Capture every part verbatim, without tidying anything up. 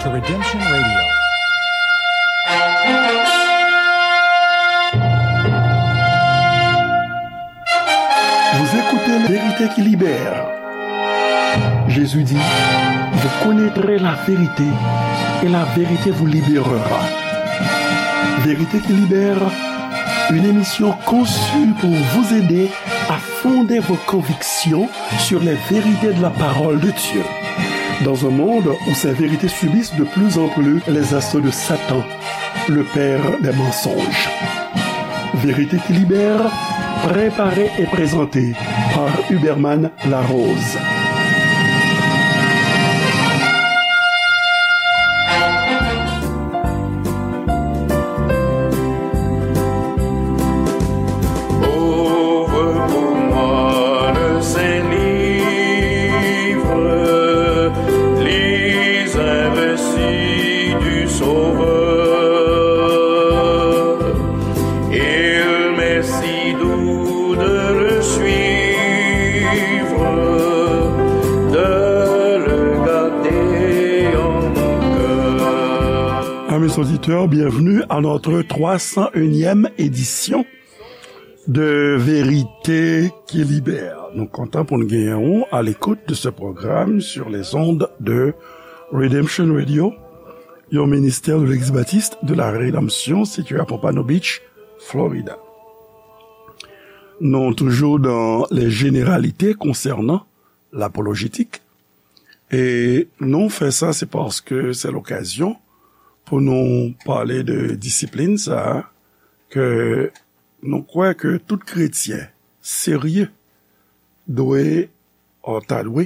The Redemption Radio. Vous écoutez Vérité qui libère. Jésus dit, vous connaîtrez la vérité et la vérité vous libérera. Vérité qui libère, une émission conçue pour vous aider à fonder vos convictions sur les vérités de la parole de Dieu. Dans un monde où ces vérités subissent de plus en plus les assauts de Satan, le père des mensonges. Vérité qui libère, préparée et présentée par Huberman Larose. Ouvre pour moi le Saint-Livre, lis un récit du Sauveur. Il m'est si doux de le suivre, de le garder en mon cœur. Amis auditeurs, bienvenue à notre trois cent unième édition de Vérité qui Libère. Nou kontan pou n genyen ou à l'écoute de ce programme sur les ondes de Redemption Radio, yon ministère de l'Église baptiste de la Rédemption situé à Pompano Beach, Florida. Nou toujou dans les généralités concernant l'apologétique. E nou fè sa, se paske se lokazyon pou nou pale de disiplin sa a ke nou kwè ke tout kretyen serye dwe, ta dwe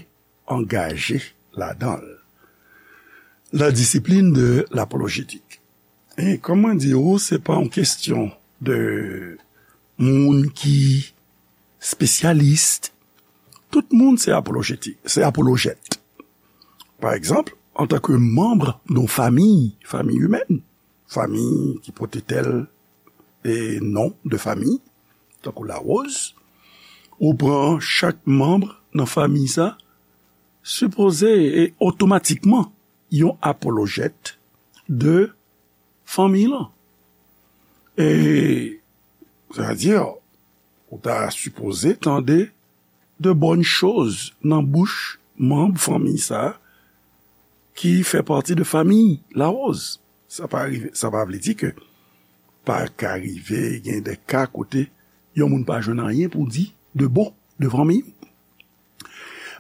angaje ladan l. La discipline de l'apologétique. E kòm mwen di ou, se pa yon kesyon de moun ki spesyalis. Tout moun se apolojeti-, se apolojèt. Pa egzanp, antanke manm yon fanmi, fanmi imèn, fanmi ki pote tèl e non de fanmi, tankou Larose, ou pran chak manm nan fanmi sa, sipoze e otomatikman yon apolojèt de fanmi lan. E, sètadi, ou ta sipoze tande de bòn choz nan bouch manm fanmi sa ki fè pati de fanmi Larose. Sa pa rive, sa pa vle di ke pa ka rive gen de ka kote yon moun pa jwenn anyen pou di de bon de fanmi.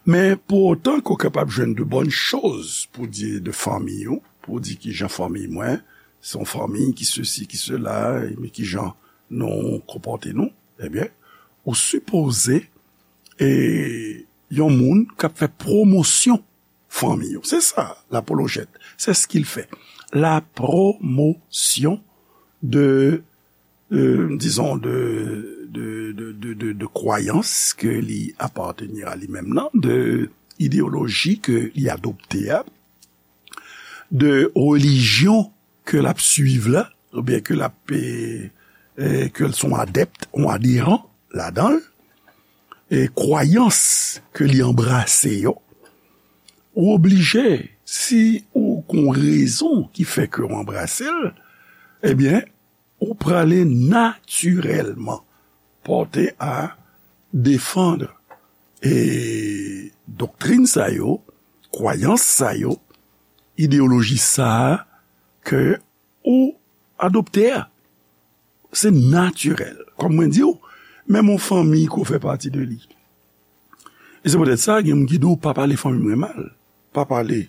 Men pou otan ke w kapab jwenn de bòn choz pou di de fanmi w, pou di kijan fanmi mwen, se yon fanmi ki sesi, ki sela, men kijan nou konpòte nou, ebyen, ou sipoze, e, yon moun k ap fè pwomosyon fanmi yo. Se sa, lapolojèt. C'est ce qu'il fait. La promotion de, euh, disons, de, de, de, de, de, de kwayans ke li apartenir a li menm nan, de ideyoloji ke li adopte a, de relijyon ke l ap swiv la, oubyen ke l ap, e, e, ke l se yon adèpt, yon aderan ladan l, e kwayans ke li anbrase yo, ou oblije, si ou gon rezon ki fè ke w anbrase l, ebyen, ou prale natirèlman pòte a defann, e, doktrin sa yo, kwayans sa yo, ideyoloji sa a ke ou adopte a. Se natirèl. Kòm mwen di w, menm yon fanmi ke w fè pati de li. E se poutèt sa, gen moun ki di w, "Pa pale fanmi mwen mal. Pa pale,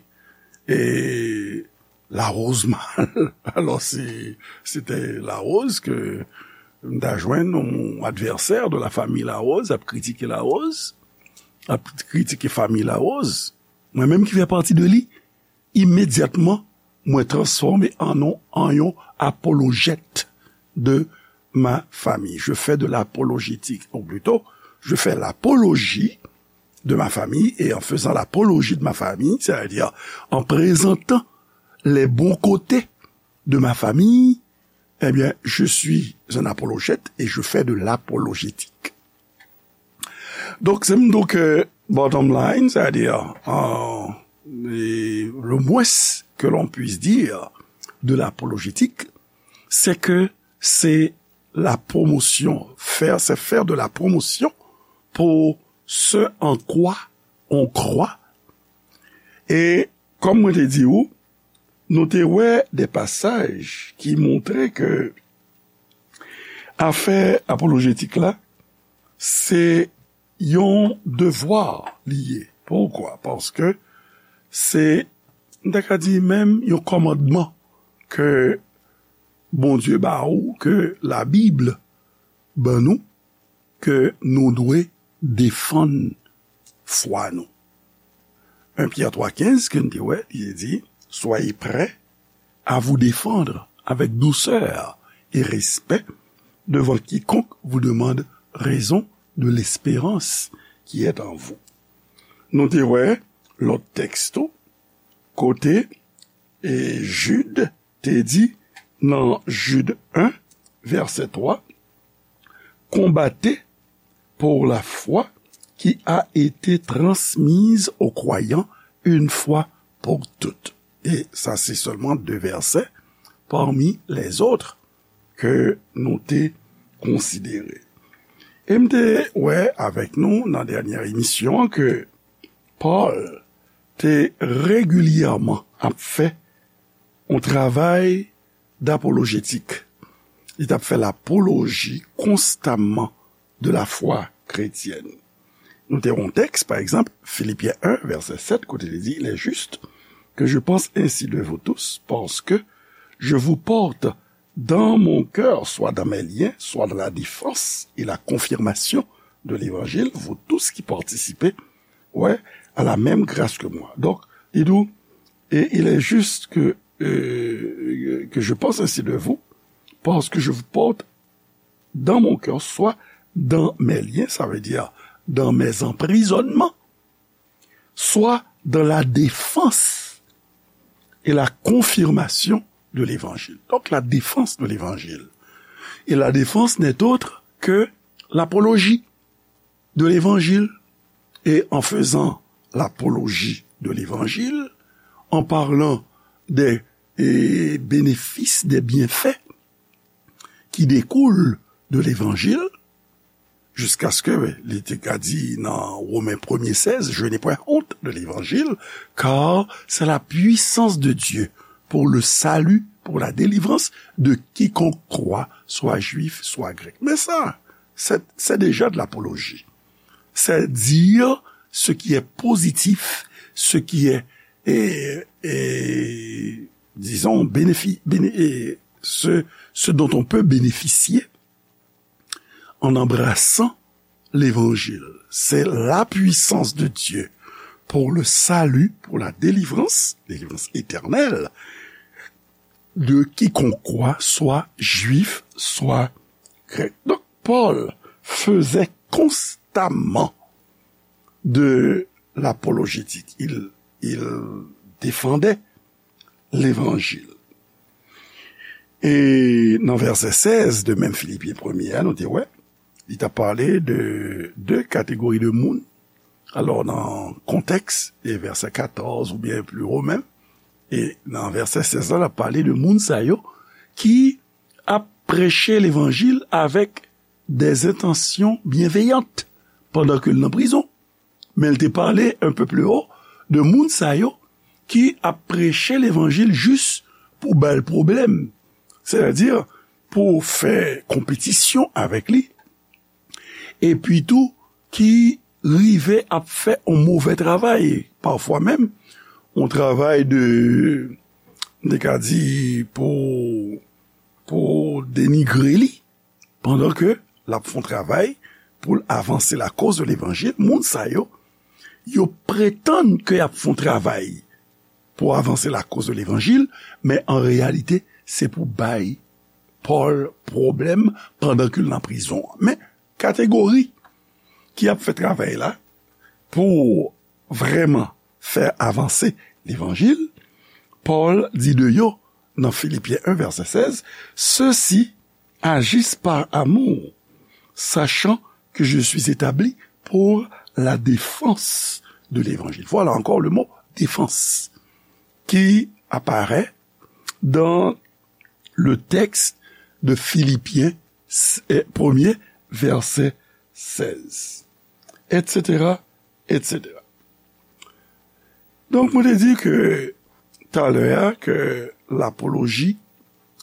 e, Larose mal." Alò, se, se te Larose ke m ta jwenn yon advèsè de la famille Larose, ap kritike Larose, ap kritike fanmi Larose. Mwen menm ki fè pati de li, imedyatman, mwen transfòme an yon, an yon apolojèt de ma famille. Je fais de l'apologétique, ou plito, je fais l'apologie de ma famille, et en faisant l'apologie de ma famille, c'est-à-dire en présentant les bons côtés de ma famille, eh bien, je suis un apologète et je fais de l'apologétique. Donk, se m di w ke bottom line, sètadi, an, et le moins que l'on puisse dire de l'apologétique, c'est que c'est la promotion, faire, c'est faire de la promotion pour ce en quoi on croit. E kòm mwen te di ou, nou te wè de pasaj ki montre ke afè apolojetik la, se yon devwa li ye. Poukwa? Paske se, m ta ka di menm yon kòmandman ke Bondye ba ou, ke Labib ban nou, ke nou dwe defann fwa nou. En Pyè twa kenz, ke n te wè, li te di, soyez prêts à vous défendre avec douceur et respect devant quiconque vous demande raison de l'espérance qui est en vous. Nou te wè lòt tèks tou, kote e Jid te di nan Jid en, vèsè twa, combattez pour la foi qui a été transmise aux croyants une fois pour toutes. E sa se sèlman de vèsè parmi les autres ke nou te konsidere. E m te wè avèk nou nan dènyè emisyon an ke Pòl te regilyèman ap fè yon travay dapolojetik. Li t ap fè lapoloji konstamman de la foi chrétienne. Nou te yon tèks, pa egzanp, Filipyen en, vèsè sèt, kote li di, il est juste que je pense ainsi de vous tous, parce que je vous porte dans mon cœur, soit dans mes liens, soit dans la défense et la confirmation de l'évangile, vous tous qui participez, ouais, à la même grâce que moi. Donc, il dit, et il est juste que, euh, que je pense ainsi de vous, parce que je vous porte dans mon cœur, soit dans mes liens, ça veut dire dans mes emprisonnements, soit dans la défense et la confirmation de l'évangile. Donc, la défense de l'évangile. Et la défense n'est autre que l'apologie de l'évangile. Et en faisant l'apologie de l'évangile, en parlant des, eh, bénéfices, des bienfaits qui découlent de l'évangile, jiskaske li te ka di nan Women premye sèz, je n'ai point honte de l'évangile, car c'est la puissance de Dieu pour le salut, pour la délivrance de quiconque croit, soit juif, soit grec. Men sa, c'est, c'est déjà de l'apologie. C'est dire ce qui est positif, ce qui est, et, et, disons, bénéfi-, béné-, et ce, ce dont on peut bénéficier en embrassant l'évangile. C'est la puissance de Dieu pour le salut, pour la délivrance, délivrance éternelle, de quiconque croit, soit juif, soit grec. Donc, Paul faisait constamment de l'apologétique. Il, il défendait l'évangile. E nan vèsè sèz de menm Filipyen premye a, nou te wè, li t ap pale de de kategori de moun. Alò, nan kontèks, e vèsè katòz oubyen pli wo menm, e nan vèsè sèz la, l ap pale de moun sa yo ki ap preche levanjil avèk des intentions bienveillantes pandan ke l nan prizon. Men l te pale un peu plus haut de moun sa yo ki ap preche levanjil jis pou ba l pwoblèm. Sètadi, pou fè konpetisyon avèk li. Epi tou, ki rive ap fè yon move travay. Pafwa menm, yon travay de, m te ka di, pou, pou denigre li. Pandan ke l ap fè yon travay pou l avanse lakoz de levanjil, moun sa yo, yo pretann ke y ap fè yon travay pou avanse lakoz de levanjil, men an reyalite, se pou bay Pòl pwoblèm pandan ke l nan prizon an. Men, kategori ki ap fè travay la pou vrèman fè avanse levanjil, Pòl di de yo nan Filipyen en, vèsè sèz, ceux-ci agissent par amour, sachant que je suis établi pour la défense de l'évangile. Voilà encore le mot défense qui apparaît dans le texte de Philippiens, eh, premier, verset seize, et cetera, et cetera. Donk, mwen te di ke talè a ke lapoloji,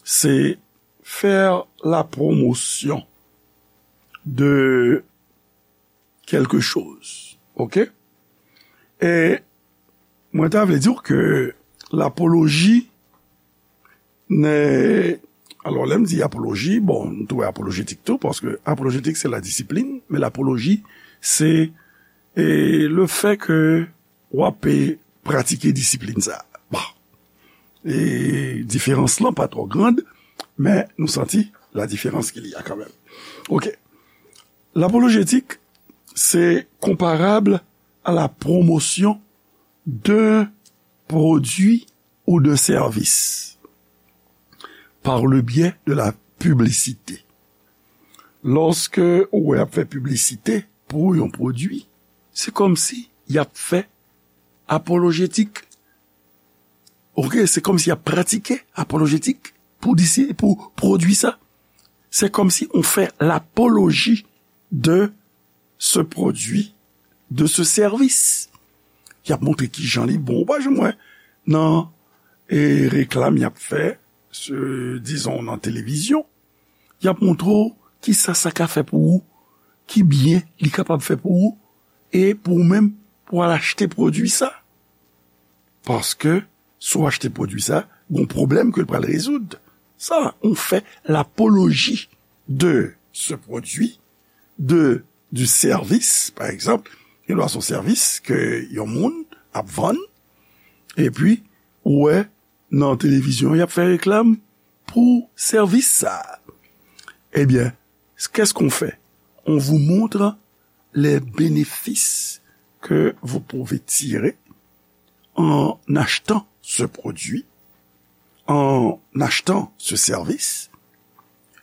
se faire la promotion de quelque chose. OK? E mwen ta vle di w ke lapoloji, ne, alò, lè m di apoloji, bon, nou tou wè apolojetik tou, paske apolojetik se la disiplin, men lapoloji se, e, le fè ke w ap, e, pratike disiplin sa. Bon. E diferans lan pa twò grand, men nou santi la différence qu'il y a quand même. OK. Lapolojetik, c'est comparable à la promotion d'un produit ou d'un service par le biais de la publicité. Lòske ou wè y ap fè piblisite pou yon pwodui, se kòmsi y ap fè apolojetik. OK, se kòmsi y ap pratike apolojetik pou disi-, pou pwodui sa. Se kòmsi on fè lapoloji de ce produit, de ce service. Y ap montre kijan li bon. Ou pa janm wè nan, e, reklam y ap fè, se, dizon, nan televizyon, y ap montre w kisa sa ka fè pou ou, ki byen li kapab fè pou ou, e pou ou menm, pou w al achte pwodui sa. Paske, si w achte pwodui sa, gon pwoblèm ke l pral rezoud. Sa, on fè lapoloji de ce produit, de, du service, pa egzanp, gen dwa se yon sèvis ke yon moun ap vann, epi, ou wè, nan televizyon, y ap fè reklam pou sèvis sa. Ebyen, qu'est-ce qu'on fait? On vous montre les bénéfices que vous pouvez tirer en achetant ce produit, en achetant ce service.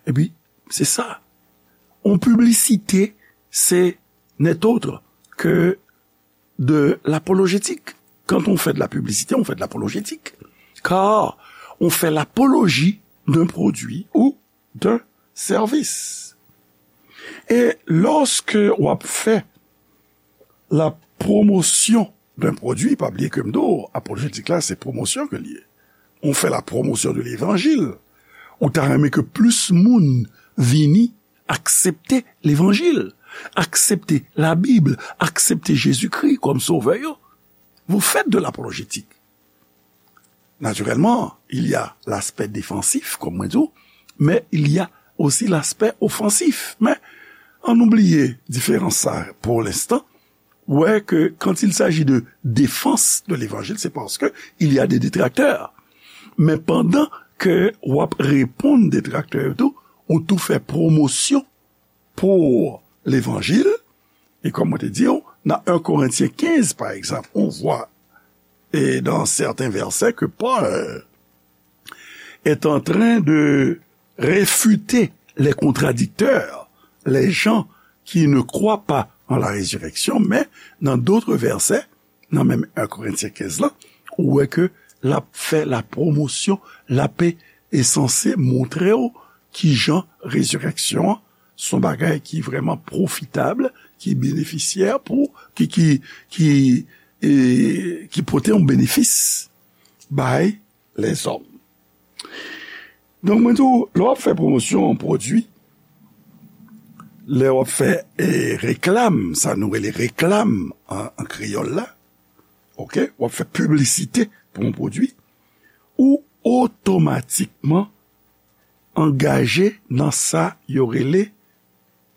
Epi, se sa. On piblisite, se n'est autre que de l'apologétique. Quand on fait de la publicité, on fait de l'apologétique. Car on fait l'apologie d'un produit ou d'un service. E lòske w ap fè la pwomosyon d'un produit, pa bliye ke m di w, apolojetik la, se pwomosyon ke l ye. On fait la promotion de l'évangile. Ou ta renmen ke plis moun vini aksepte levanjil, aksepte Labib, aksepte Jezikri kòm sovè yo. Vous faites de l'apologétique. Naturellement, il y a l'aspect défensif, comme mwen di w, mais il y a aussi l'aspect offensif. Men, ann nou bliye diferans sa pour l'instant. Wè ke quand il s'agit de défense de l'évangile, c'est parce que il y a des détracteurs. Men pandan ke w ap reponn detraktè yo tou, ou tou fè pwomosyon pour l'évangile. E kòm mwen te di w, nan un Corinthiens quinze, par exemple, on voit, et dans certains versets, que Paul est en train de réfuter les contradicteurs, les gens qui ne croient pas en la résurrection, mais dans d'autres versets, nan menm un Corinthiens quinze la, ou wè ke l ap fè la pwomosyon, l ap e sanse montre w kijan rezirèksyon an se yon bagay ki vrèman pwofitab, ki benefisyè pou, ki, ki, ki, e, ki pote yon benefis bay lèzòm. Donk, mwen di w, lè w ap fè pwomosyon yon pwodui, lè w ap fè, e, reklam, sa nou rele reklam an, an kreyòl la, OK, w ap fè piblisite pou yon pwodui, ou otomatikman angaje nan sa yo rele,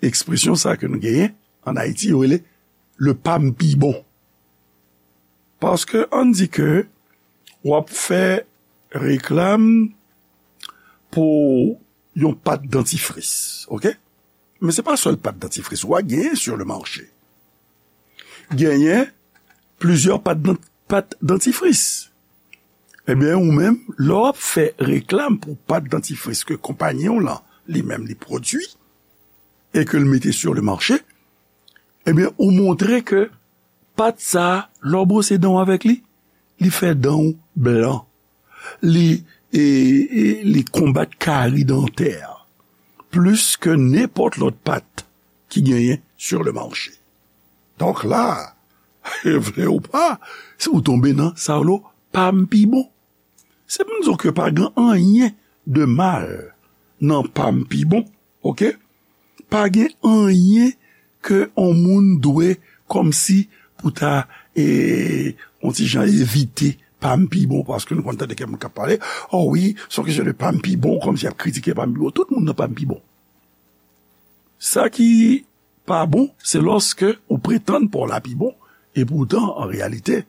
ekspresyon sa ke nou genyen ann Ayiti, yo rele le pa m pi bon. Paske ann di ke w ap fè reklam pou yon pat dantifris, OK? Men se pa sèl pat dantifris ou a genyen sur le marché. Genyen plizyè pat dan-, pat dantifris. Ebyen, ou menm, lè w ap fè reklam pou pat dantifris ke konpayi w lan, li menm, li pwodui, e ke l mete sur le marché, ebyen, ou montre ke pat sa a, lè w bwose dan w avèk li, Li fè dan w blan. Li, e, e, li konbat kari dantè plis ke nenpòt lòt pat ki genyen sur le marché. Donk la, vle ou pa, si ou tonbe nan sa yo, pa m pi bon. Se pou m di w ke pa gen anyen de mal nan pa m pi bon, oke? Pa gen anyen ke on moun dwe kòmsi pou ta, e, on ti jan evite pa m pi bon, paske nou konn tande kèk moun k ap pale, o wi, se yon kesyon de pa m pi bon, kòmsi y ap kritike pa m pi bon. Tout moun nan pa m pi bon. Sa ki pa bon, se lòske ou pretann pa w la pi bon, e poutan, an reyalite,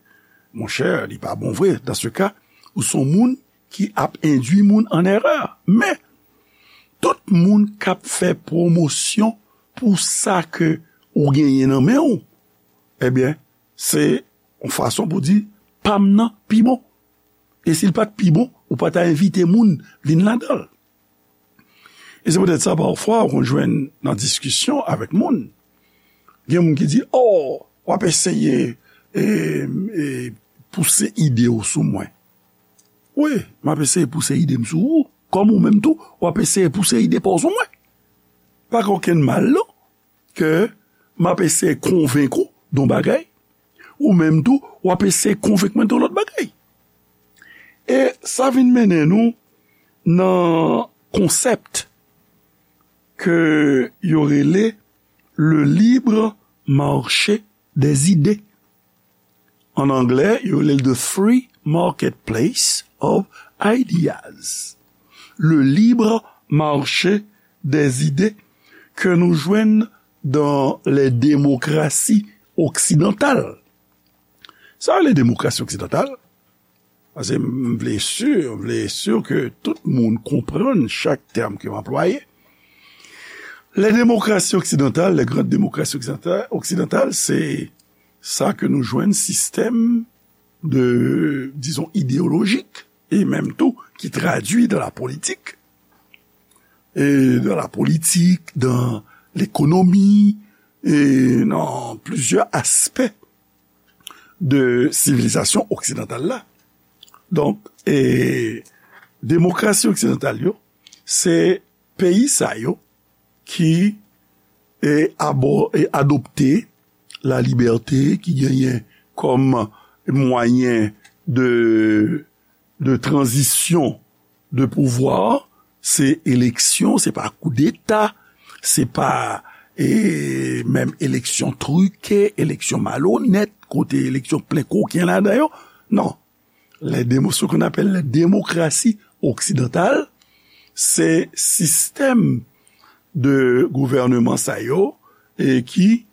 monchè, li pa bon vre. Dan se ka, ou se yon moun ki ap endui moun an erè. Men, tout moun k ap fè pwomosyon pou sa ke ou genyen nan men w, ebyen, se yon fason pou di, pa m nan pi bon. E si l pa t pi bon, ou pa ta envite moun vin ladan l. E se poutèt sa, pafwa, ou konn jwenn nan diskisyon avèk moun, gen moun ki di, o, w ap eseye, e, e, pouse ide w sou mwen. Wi, m ap eseye pouse ide m sou ou, kòm ou menm tou, w ap eseye pouse ide pa w sou mwen. Pa gen okenn mal, non, ke m ap eseye konvenk ou de yon bagay, ou menm tou, w ap eseye konvenk mwen de yon lòt bagay. E sa vin mennen nou nan konsèp ke yo rele le libre marché des idées. An anglè, yo rele l the free marketplace of ideas. Le libre marché des idées ke nou jwenn dans les démocraties occidentales. Sa rele demokrasi oksidantal, paske m vle si, m vle si ke tout moun konprann chak tèm ke m anplwaye. Les démocraties occidentales, les grandes démocraties oksidantal, oksidantal, se sa ke nou jwenn sistèm de, dizon, ideyolojik, e menm tou ki tradui dans la politique, e dans la politique, dans l'économie, e nan plizyè aspè de sivilizasyon oksidantal la. Donk, e, demokrasi oksidantal yo, se peyi sa yo ki, e, abo-, e, adopte la libète, ki genyen kòm mwayen de, de tranzisyon de pouvwa, se eleksyon, se pa koudeta, se pa, e, menm eleksyon trike, eleksyon malonèt, kote eleksyon plen koken ladan yo. Non. Les démo-, ce qu'on appelle les démocraties occidentales, se sistèm de gouvènman sa yo, e ki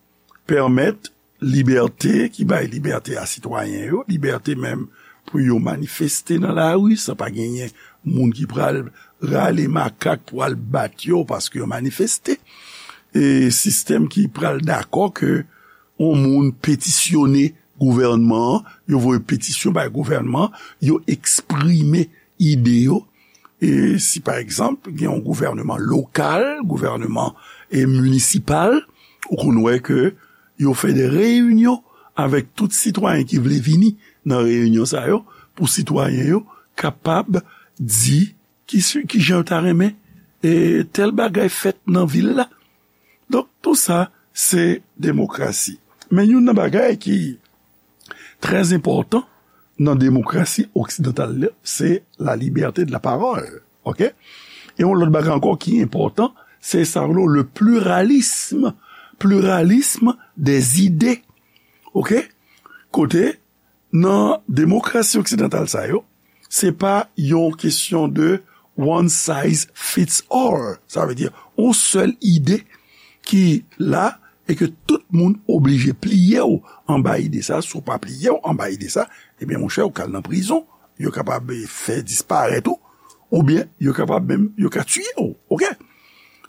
pèmèt libète, ki bay libète a sitwayen yo, libète menm pou yo manifeste nan lari, san pa genyen moun ki pral rale makak pou al bat yo paske yo manifeste. E sistèm ki pral dakò ke yon moun petisyone gouvènman an, yo voye petisyon bay gouvènman, yo eksprime ide yo. E si, pa egzanp, gen yon gouvènman lokal, gouvènman, e, minisipal, ou konn wè ke yo fè de reyinyon avèk tout sitwayen ki vle vini nan reyinyon sa yo, pou sitwayen yo kapab di ki, ki jan yo ta renmen, e, tèl bagay fèt nan vil la. Donk, tou sa, se demokrasi. Men youn nan bagay ki trè enpòtan nan demokrasi oksidantal la, se la liberté de la parole. Oke? E yon lòt bagay ankò ki enpòtan, se sa yo rele le pluralisme, pluralisme des idées. Oke? Kote, nan demokrasi oksidantal sa yo, se pa yon kesyon de one size fits all. Sa vle di, yon sèl ide ki la e ke tout moun oblije pliye w anba ide sa. Si w pa pliye w anba ide sa, ebyen, monchè, ou ka al nan prizon. Yo kapab fè disparèt ou, oubyen yo kapab menm, yo ka tiye w. Oke?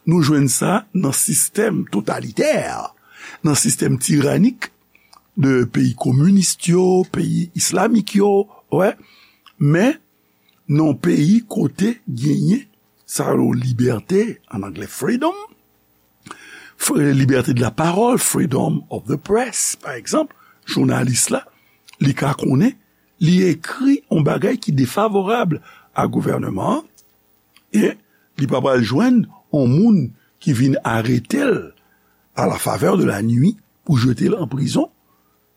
Nou jwenn sa nan sistèm totalitè, nan sistèm tiranik de peyi kominis yo, peyi islamik yo, wè. Men, nan yon peyi kote genyen sa yo libète, an anglè freedom, fre-, liberté de la parole, freedom of the press, pa egzanp, jounalis la, li ka konnen li ekri yon bagay ki defavorab a gouvènman an, e li pa pral jwenn yon moun ki vin arete l à la faveur de la nuit pou jete l an prizon,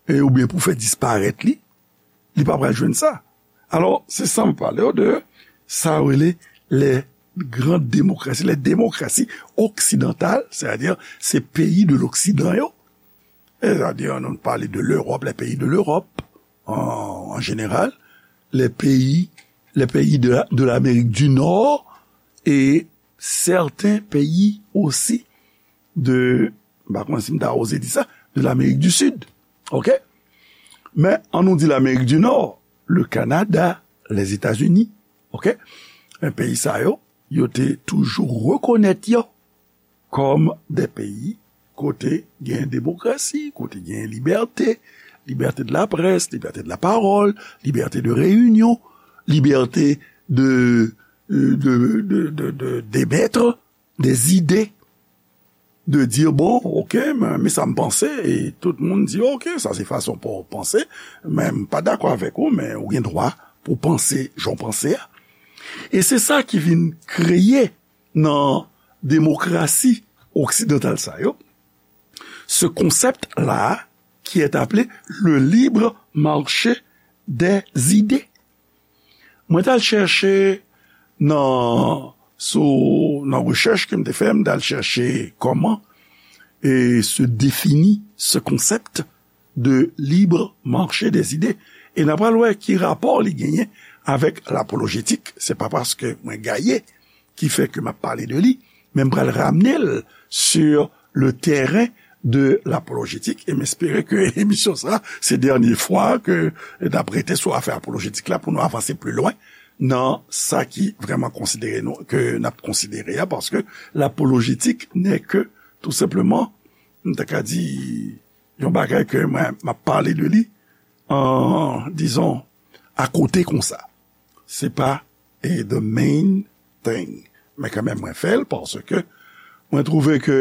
e, oubyen pou fè disparèt li, li pa pral jwenn sa. Alò, se sa m pale w de sa yo rele les grandes démocraties, les démocraties occidentales, c'est-à-dire se peyi de l'Occident yo, c'est-à-dire nou pale de l'Europe, les pays de l'Europe en, en général, les pays, les pays de, la- de l'Amérique du Nord et certains pays aussi de, m pa konn si m ta oze di sa, de l'Amérique du Sud. OK? Men, an nou di l'Amérique du Nord, le Canada, les États-Unis. OK? Men peyi sa yo, yo te toujou rekonèt yo kòm de peyi kote gen demokrasi, kote gen libète, liberté de la presse, liberté de la parole, liberté de réunion, liberté de, de, de, de, de, d'émettre des idées, de dire, bon, OK, men, men sa m panse, e tout moun di, OK, sa se fason pou w panse, men m pa dakò avèk ou, men ou gen dwa pou w panse jan w panse a. E se sa ki vin kreye nan demokrasi oksidantal sa yo, ce concept-là qui est appelé le libre marché des idées. Mwen t al chèche nan, sou, nan rechèch ke m te fè, m t al chèche kòman e se defini ce concept de libre marché des idées. E n a pral wè ki rapò li genyen avèk lapolojetik. Se pa paske mwen gaye ki fè ke m ap pale de li, men m pral ramne l sur le terrain de lapolojetik, e m espere ke emisyon sa, se dènye fwa ke n ap rete sou afè apolojetik la pou nou avanse pli lwen nan sa ki vrèman konsidere nou, ke n ap konsidere a, paske lapolojetik n'est que, tou senpleman, m ta ka di, yon bagay ke mwen, m ap pale de li, an, dizon, akote konsa. Se pa, e, the main thing. Men kanmenm, mwen fè l paske mwen twouve ke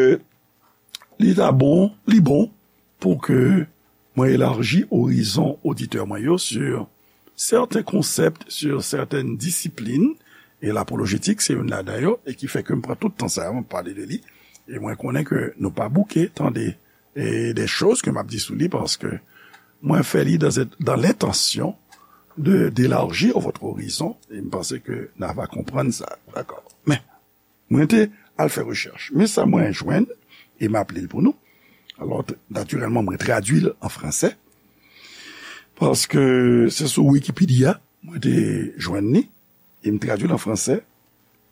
li ta bon, li bon pou ke mwen elaji orizon oditè mwen yo sur certains concepts, sur certaines disciplines, e lapolojetik se youn ladan yo, e ki fè ke m pran tout tan sa a, m pale de li, e mwen konnen ke nou pa bouke tande e des choses ke m ap di sou li, paske mwen fè li dans, dans l'intention de, d'élargir votre horizon, e m panse ke n a va konprann sa, dakò. Men, mwen te al fè rechèch. Men sa mwen jwenn, e m ap li l pou nou. Alò, t- natirèlman, mwen tradui l an fransè, paske se sou Wikipedia mwen te jwenn li, e m tradui l an fransè,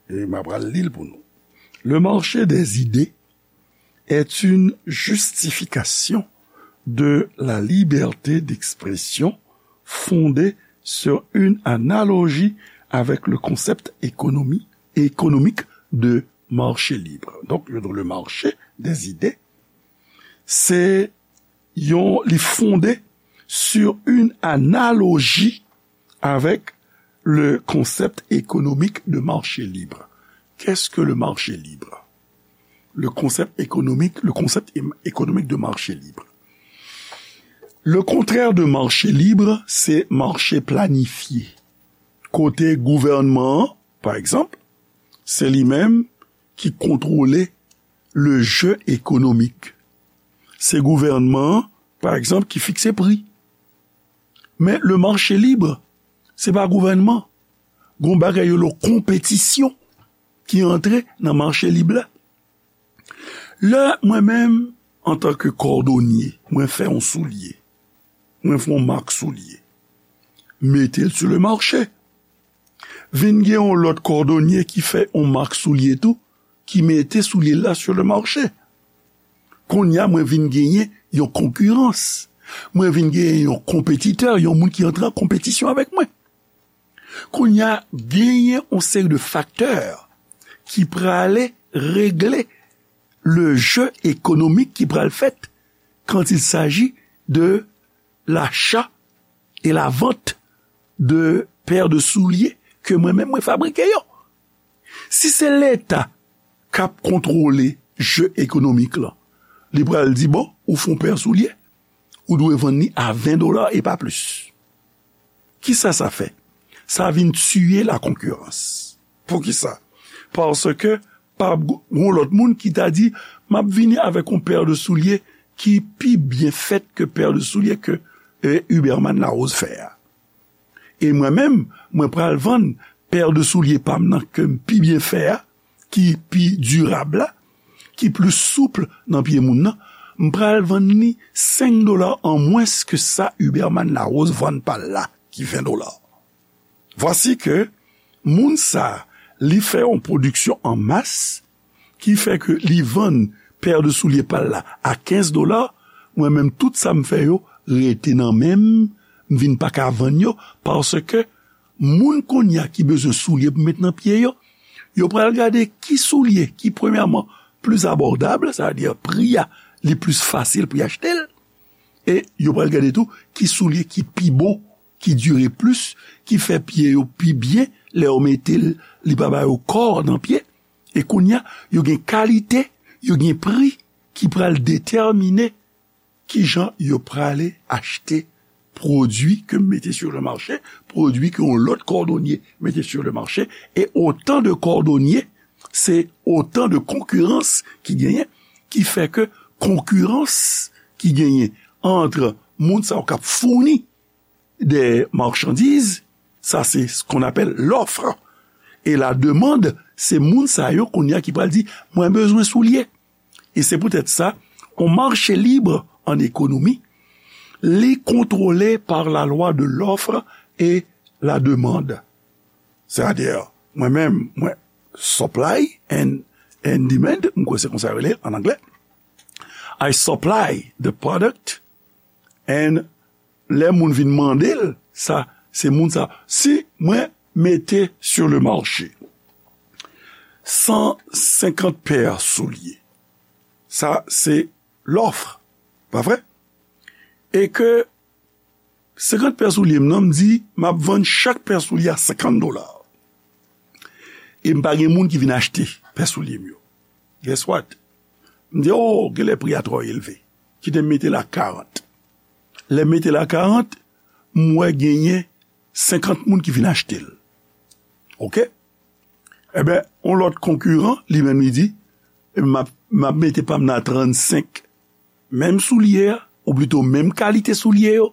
e m ap pral li l pou nou. Le marché des idées est une justification de la liberté d'expression fondée sur une analogie avec le concept économie- économique de marché libre. Donk, yo di le marché des idées, se yon, li fonde sur une analogie avec le concept économique de marché libre. Qu'est-ce que le marché libre? Le concept économique, le concept é- économique de marché libre. Le contraire de marché libre, c'est marché planifié. Kote gouvènman an, pa egzanp, se li menm ki kontwole le jeu économique. Se gouvènman an, pa egzanp, ki fikse pri. Men le marché libre, se pa gouvènman. Gon bagay yo lo konpetisyon ki antre nan mache lib la. Lè mwen menm, antanke kòdonye, mwen fè yon soulye, mwen fè yon mak soulye, mete l sou le mache. Vin gen yon lòt kòdonye ki fè yon mak soulye tou, ki mete soulye la sou le mache. Kounye a, mwen vin genyen yon konkirans. Mwen vin genyen yon konpetitè, yon moun ki antre an konpetisyon avèk mwen. Kounye a, genyen yon seri de faktè ki prale regle le jeu économique ki pral fèt quand il s'agit de l'achat et la vente de paires de souliers ke mwen menm mwen fabrike yo. Si se Leta k ap kontwole jeu économique lan, li pral di, bon, ou fè yon pè soulye, ou dwe vann li a ven dola e pa plis. Kisa sa fè? Sa vin tiye la konkirans. Poukisa? Paske pa ap gen yon lòt moun ki ta di, "M ap vini avèk yon pè de soulye ki pi byen fèt ke pè de soulye ke, e, Huberman Larose fè a." E mwen menm, mwen pral vann pè de soulye pa m nan ke m pi byen fè a, ki pi dirab la, ki plis soup nan pye moun nan, m pral vann li senk dola an mwens ke sa Huberman Larose vann pa l la, ki ven dola. Vwasi ke moun sa, li fè yon pwodiksyon an mas, ki fè ke li vann pè de soulye pa l la a kenz dola, mwen menm tout sa m fè yo rete nan men m, m vin pa ka vann yo, paske moun kounye a ki bezwen soulye pou met nan pye yo, yo pral gade ki soulye ki premyèman plis abòdab, sa vle di pri a li plis fasil pou y achte l, e yo pral gade tou ki soulye ki pi bon, ki dire plis, ki fè pye yo pi byen, lè yo mete l, li pa ba yo kò nan pye. E kounye a, yo gen kalite, yo gen pri ki pral detèmine kijan yo prale achte pwodui ke m mete sur le marché, pwodui ke yon lòt kòdonye mete sur le marché, e otan de kòdonye, se otan de konkirans ki genyen, ki fè ke konkirans ki genyen ant moun sa yo k ap founi de machandiz, sa se ce qu'on appelle l'offre. E la demande, se moun sa yo kounye a ki pral di, "Mwen bezwen soulye." E se poutèt sa, yon mache lib an ekonomi, li kontwole pa la lwa de l'offre et la demande. Sètadi, mwen menm, mwen supply and, and demand, m kwè se konsa yo rele an anglè. I supply the product and lè moun vin mande l, sa, se moun sa. Si mwen mete sur le marché san senkant pè soulye, sa se lòf, pa vre? E ke senkant pè soulye m nan, m di, m ap vann chak pè soulye a senkant dola. E m pa gen moun ki vin achte pè soulye m yo. Guess what? M di, "Oh, genlè pri a twò elve. Kite m mete l a karant." Lè m mete l a karant, m wè genyen senkant moun ki vin achte l. Oke? Ebyen, yon lòt konkiran, li menm, li di, "M ap, m ap mete pa m nan a trannsenk." Menm soulye a, ou plito menm kalite soulye yo,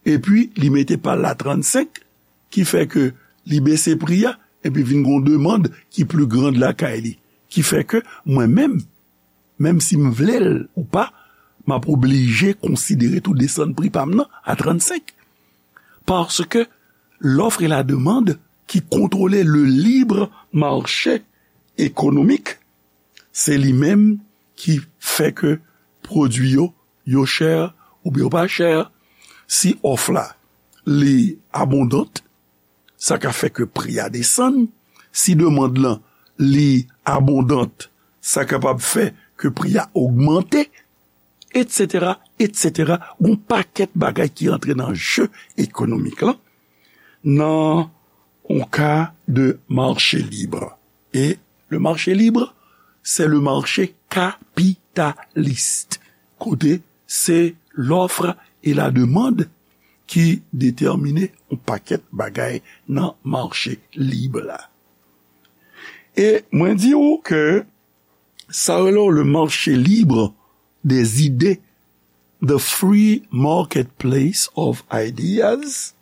epi li mete pa l la trannsenk, ki fè ke li bese pri a, epi vin gon demann ki pli grand lakay li. Ki fè ke mwen menm, menm si m vle l ou pa, m ap oblije konsidere tou desann pri pa m nan a trannsenk. Paske l'offre et la demande ki kontwole le libre marché économique, se li menm ki fè ke pwodui yo, yo chè oubyen yo pa chè. Si òf la, li abondant, sa ka fè ke pri a desann. Si demann lan, li abondant, sa kapab fè ke pri a ogmante, etsetera, etsetera. Gon pakèt bagay ki antre nan je ekonomik lan, nan yon ka de marché libre. E le marché libre, c'est le marché capitaliste. Kote se l'offre et la demande ki detèmine yon pakèt bagay nan mache lib la. E mwen di w ke sa rele le marché libre des idées, the free marketplace of ideas,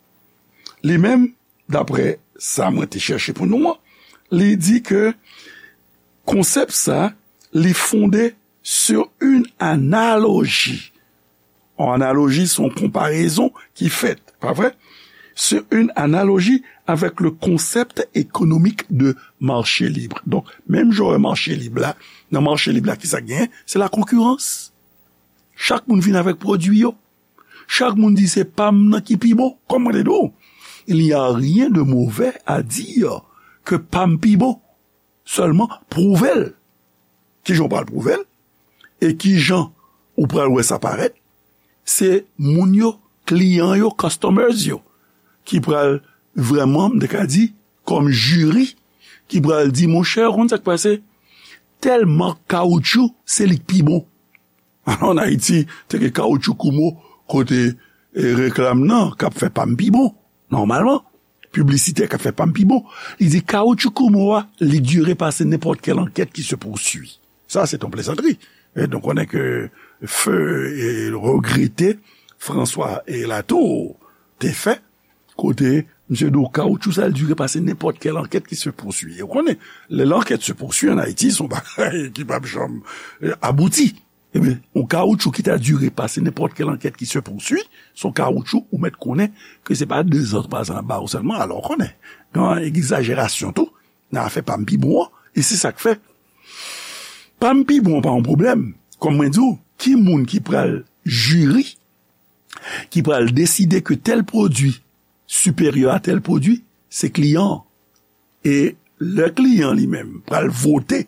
li menm, daprè sa mwen te chèche pou nou an, li di ke konsèp sa, li fonde sur une analogie. Yon analoji, se yon konparezon ki fèt, pa vre? Sur une analogie avec le concept économique de marché libre. Donk, menm jan w wè mache lib la, nan mache lib la, kisa k genyen? Se la konkirans. Chak moun vin avèk pwodui yo. Chak moun di se pa m nan ki pi bon. Kòm mwen te di w, il n'y a rien de mauvais à dire que pa m pi bon. Sèlman, pwouve l. Kijan w pral pwouve l? E kijan ou pral wè sa parèt? Se moun yo, kliyan yo, customers yo, ki pral vrèman, m te ka di, kòm jiri, ki pral di, "Monchè, ou konn sa k pase? Tèl mak kawoutchou, se li k pi bon." Alò, ann Ayiti, te gen kawoutchou Kumho, kote, e, reklam nan, k ap fè pa m pi bon. Nòmalman, piblisitè k ap fè pa m pi bon, li di kawoutchou Kumho a, li dire pase nenpòt kèl ankèt ki se pousui. Sa, se yon plezantri. E donk, konnen ke feu e regrete François e Latour te fè, kote misye di w kawoutchou sa, li dire pase nenpòt kèl ankèt ki se pousui. E w konnen, lè lankèt se pousui an Ayiti, se yon bagay ki p ap janm, e, abouti. Ebyen, yon kawoutchou ki ta dire pase nenpòt kèl ankèt ki se pousui, se yon kawoutchou ou mèt konnen ke se pa de zan pa zan ap ba w sèlman, alò w konnen. Gen egzajerasyon tou, nan afè pa m pi bon an, e se sa k fè. Pa m pi bon an pa yon pwoblèm. Kòm mwen di w, ki moun ki pral jiri, ki pral deside ke tèl pwodui siperyè a tèl pwodui, se kliyan an. E lè kliyan li menm pral vote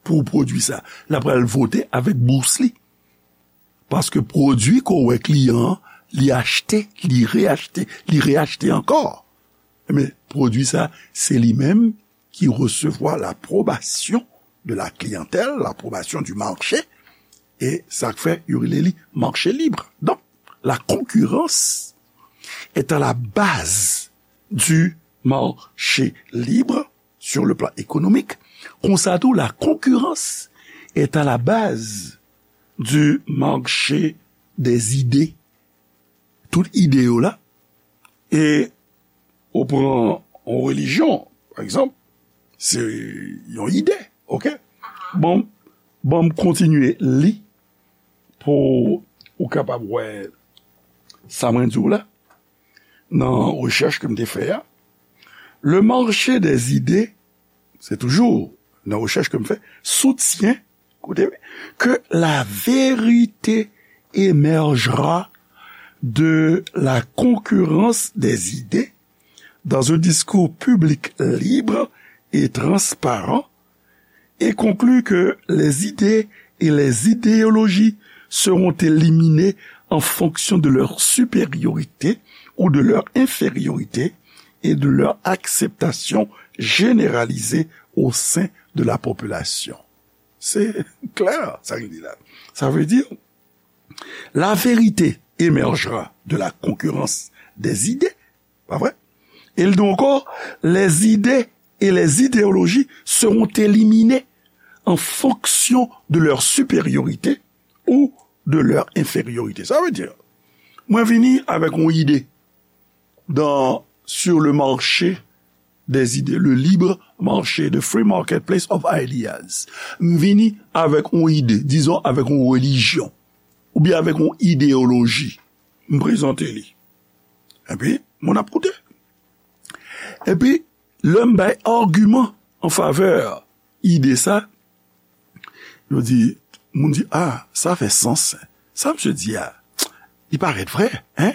pou pwodui sa, l ap pral vote avèk bous li. Paske pwodui ke w wè kliyan an, li achte, li reachte, li reachte ankò. Men pwodui sa, se li menm ki resevwa lapwobasyon de la kliyantèl, lapwobasyon di mache, e sa k fè yo rele li mache lib. Donk, la concurrence est à la base du marché libre sur le plan économique. Konsa tou, la concurrence est à la base du marché des idées. Tout ide yo la, e ou pran yon relijyon, pa egzanp, se yon ide, oke? Bon, bon, m kontinye li pou ou kapab wè sa mwen di w la, nan rechèch ke m te fè a. Le marché des idées, se toujou nan rechèch ke m fè, soutient, koute, que la vérité émergera de la concurrence des idées dans un discours public libre et transparent, et conclut que les idées et les idéologies seront éliminées en fonction de leur supériorité ou de leur infériorité et de leur acceptation généralisée au sein de la population. Se klè, sa ki di la. Sa vle di, la vérité émergera de la concurrence des idées, pa vre? E l di ankò, les idées et les idéologies seront éliminées en fonction de leur supériorité ou de leur infériorité. Sa vle di, mwen vini avèk yon ide dans, sur le marché des idées, le libre marché, the free marketplace of ideas. M vini avèk yon ide, dizon avèk yon relijyon, oubyen avèk yon ideyoloji. M prezante li. Epi, moun ap koute. Epi, lè m bay agiman an favè ide sa, yo di, moun di, ah, sa fè sans. Sa misye di a, li parèt vrè, en?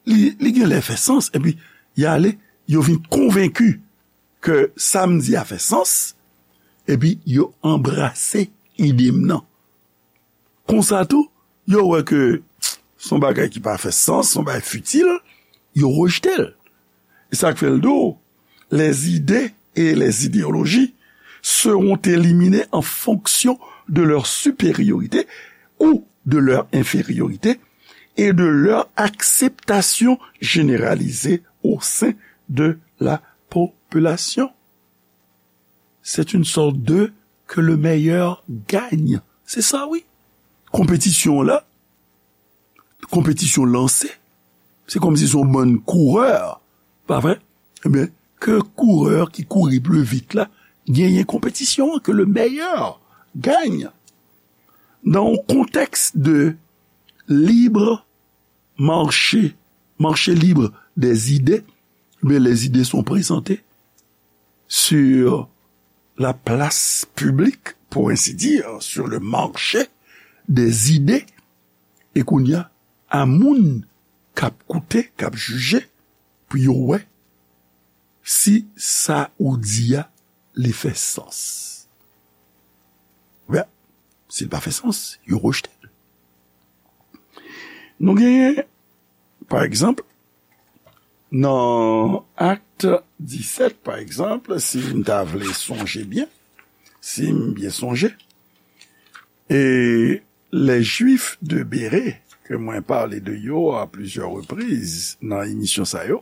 Li, li gen lè fè sans, epi y ale, yo vin konvenki ke sa m di a fè sans, epi yo anbrase ide m nan. Konsa tou, yo wè ke se yon bagay ki pa fè sans, se yon bagay fitil, yo rejte l. E sa k fè l di w, les idées et les idéologies seront éliminées en fonction de leur supériorité ou de leur infériorité et de leur acceptation généralisée au sein de la population. C'est une sorte de que le meilleur gagne. Se sa, wi. Konpetisyon la, konpetisyon lanse, se kòmsi se yon bann kourè, pa vre? Ebyen, ke kourè ki kouri pli vit la genyen konpetisyon an, que le meilleur gagne. Dans un contexte de libre marché, marché libre des idées, mais les idées sont présentées sur la place publique, pour ainsi dire, sur le marché des idées. E kounye a, a moun k ap koute, k ap jije, pou yo wè si sa ou di a, li fè sans. Oubyen, si l pa fè sans, yo rejte l. Nou genyen, pa egzanp, nan Akt disèt, pa egzanp, si m ta vle sonje byen, si m byen sonje, e les Juifs de Béré, ke mwen pale de yo a plizyè repriz nan emisyon sa yo,